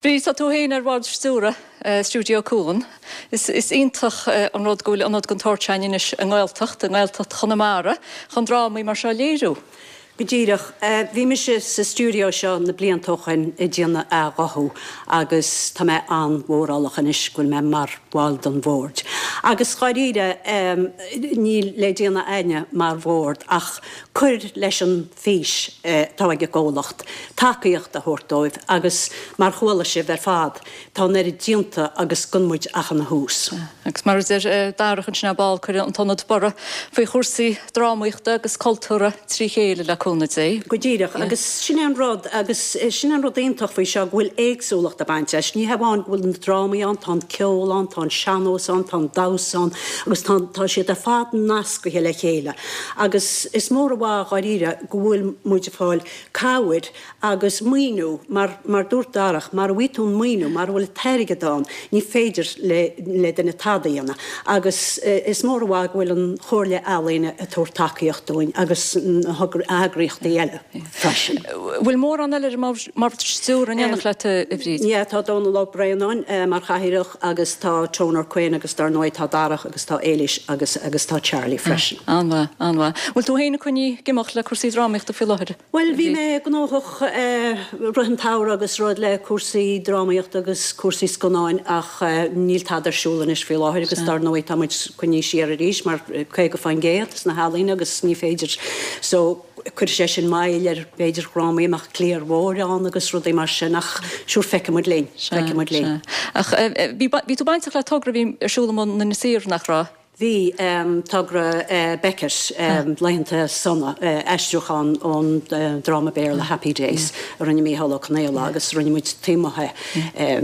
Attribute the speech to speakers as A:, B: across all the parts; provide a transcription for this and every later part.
A: Bríd, tá tú féin ar bhord stiúrtha Stiúideo Cuan. Is iontach an rud go bhfuil ionad den tsórt sin anois i nGaeltacht, i nGaeltacht Chonamara, chun drámaí mar seo a léiriú.
B: Go díreach. Bhí mise sa stiúideo seo na blianta ó shoin ag déanamh athghuthú agus tá mé an-mhórálach anois go bhfuil mé mar bhall den bhord. Agus dháiríre, níl le déanamh a'inne mar bhord ach cur leis an fís atá ag an gcomhlacht, tacaíocht a thabhairt dóibh agus mar chuala sibh ar fad, tá an oiread déanta agus gan muid ach ina thús.
A: Agus mar a deir Darach ansin ar ball, cuirfidh an t-ionad borradh faoi chúrsaí drámaíochta agus cultúrtha trí chéile le cúnamh Dé.
B: Go díreach, agus sin é an rud, agus sin é an rud iontach faoi seo, go bhfuil éagsúlacht ag baint leis. Ní hamháin go bhfuil na drámaí ann, tá an ceol ann, tá an sean-nós ann, tá an damhsa ann agus tá, tá siad ar fad nascaithe le chéile. Agus is mór an mhaith dháiríre go bhfuil muid ag fáil cabhair agus maoiniú mar, mar dúirt Darach, mara bhfaighidh tú an maoiniú, mara bhfuil an t-airgead ann, ní féidir le, le duine tada a dhéanamh. Agus is mór an mhaith go bhfuil an Chomhairle Ealaíon ag tabhairt tacaíocht dúinn agus na heagraíochtaí eile freisin.
A: Bhfuil mórán eile ar an mbord stiúrtha in éineacht leat, a Bhríd?
B: Yeah, tá Dónal Ó Braonáin mar chathaoirleach agus tá Toner Quinn agus dar ndóigh tá Darach agus tá Éilís agus agus tá Charlie freisin.
A: An-mhaith, an-mhaith. Bhfuil tú féin ag coinní ag imeacht le cúrsaí drámaíochta faoi láthair?
B: Bhuel, bhí mé gnóthach rith an tsamhraidh agus rud le cúrsaí drámaíochta agus cúrsaí scannáin ach níl tada ar siúl anois faoi láthair agus dar ndóigh tá muid coinnithe siar arís mar 50% sna healaíona agus ní féidir so Cuirfidh sé sin moill ar b'fhéidir dhrámaí a mbeadh cliar mhór ann agus rudaí mar sin ach sure feicfidh muid linn, feicfidh muid linn.
A: Ach bhí tú bainteach le togra a bhí ar siúl amuigh in Inis Oírr, nach raibh?
B: Bhí, togra Beckett, Laethanta Sona, aistriúchán ón dráma Béarla Happy Days a rinne Mícheál Ó Conaola agus rinne muid taobh amuigh é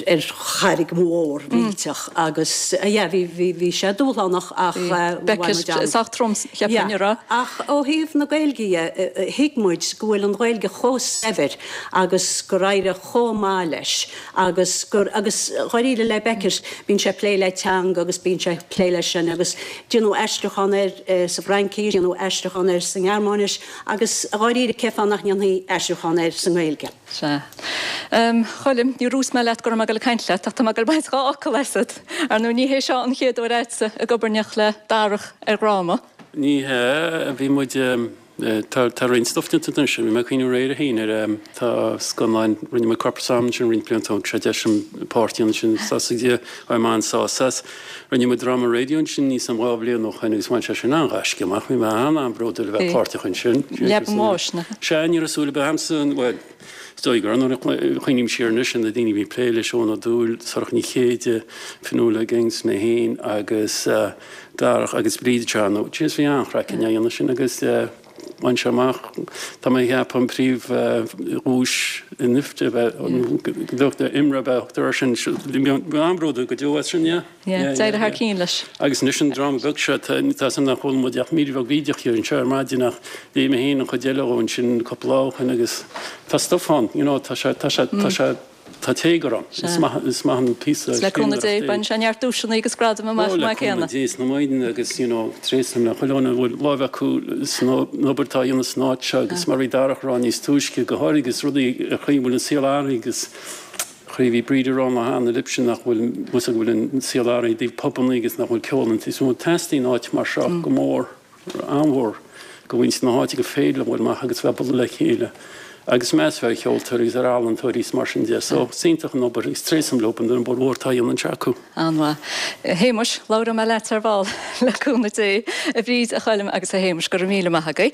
B: ar charraig mhór mhillteach agus yeah bhí, bhí sé dúshlánach ach bhain
A: muid an. Sách trom, cheapfainn, an raibh?
B: Ach ó thaobh na Gaeilge dhe, thuig muid go bhfuil an Ghaeilge chomh saibhir agus gur éirigh chomh maith leis agus gur, agus dháiríre le Beckett, bíonn sé ag plé le teanga agus bíonn sé ag plé leis sin agus déanadh aistriúchán air sa bhFraincis, déanadh aistriúchán air sa nGearmáinis agus dháiríre cén fáth nach ndéanfaí aistriúchán air sa nGaeilge?
A: Sea. A Choilm, níor dhúirt mé leat go raibh mé ag dul ag caint leat, ach tá mé ag dul ag baint dhá fhocal asat. Ar ndóigh, ní hé seo an chéad uair a'dsa ag obair in éineacht le Darach ar dhráma.
C: Ní hea, bhí muid, tá, tá roinnt stuif déanta anois, bhí mé ag cuimhniú aréir féin ar, tá scannáin, rinne muid Corpus Am ansin roinnt blianta ó shin, sé deis an páirt a dhéanamh sin, tá mé an-sásta as. Rinne muid dráma raidió ansin níos an 2 bhliain ó shoin agus bhain sé sin an-ghaisce amach. Bhí mé an-an-bhródúil a bheith páirteach ansin.
A: Leaba an Bháis,
C: nach ea? Sea, ní raibh súil ar bith a'msa, bhuel, is dóigh go raibh, nuair a chuimhním siar anois ar na daoine a bhí ag plé leis, Eoin Ó Dúill, Sorcha Ní Chéide, Fionnuala Higgins, mé féin agus Darach agus Bríd anseo, jeez, bhí an-chraic againn á dhéanamh sin agus bhain sé amach, tá mé ag ceapadh an príomh-dhuais in IFTA, IMRA ab ea a thugtar air sin, bhí an-bhródúil go deo as sin, yeah.
A: Yeah, d'éirigh thar cionn leis.
C: Agus anois an dráma beag seo, tá 's a'm nár chuala muid ach mír bheag bhídeach dhe anseo ar maidin ach léigh mé féin an chuid eile dhó ansin cúpla lá ó shin agus tá stuif ann, you know, tá sé, tá sé, tá sé, Tá téagar ann. Is maith, is maith an píosa
A: Le cúnamh Dé, bainfidh sé neart duaiseanna agus gradam amach
C: chomh maith céanna. Ó, le cúnamh Dé is na Maighdine agus, you know, tréaslaím le chuile dhuine a bhfuil láimh acu san obair atá á dhéanamh san áit seo agus mar a bhí Darach a rá níos túisce, go háirithe agus rudaí, an chaoi a bhfuil an saol athraithe agus an chaoi a bhí Bríd a rá an lá cheana libhse nach bhfuil, bhfuil go bhfuil an saol athraithe i dtaobh pubannaí agus nach bhfuil ceol an is mó. Teastaíonn áit mar seo go mór. an-mhór do mhuintir na háite gur féidir leo dul amach agus bheith ag bualadh le chéile agus meas a bheith ar cheoltóirí agus ar ealaíontóirí is mar sin de. So, is iontach an obair agus tréaslaím leo an obair mhór atá á dhéanamh anseo acu.
A: An-mhaith. A Shéamuis, labhróidh mé leat ar ball, le cúnamh Dé. A Bhríd, a Choilm agus a Shéamuis, go raibh míle maith agaibh.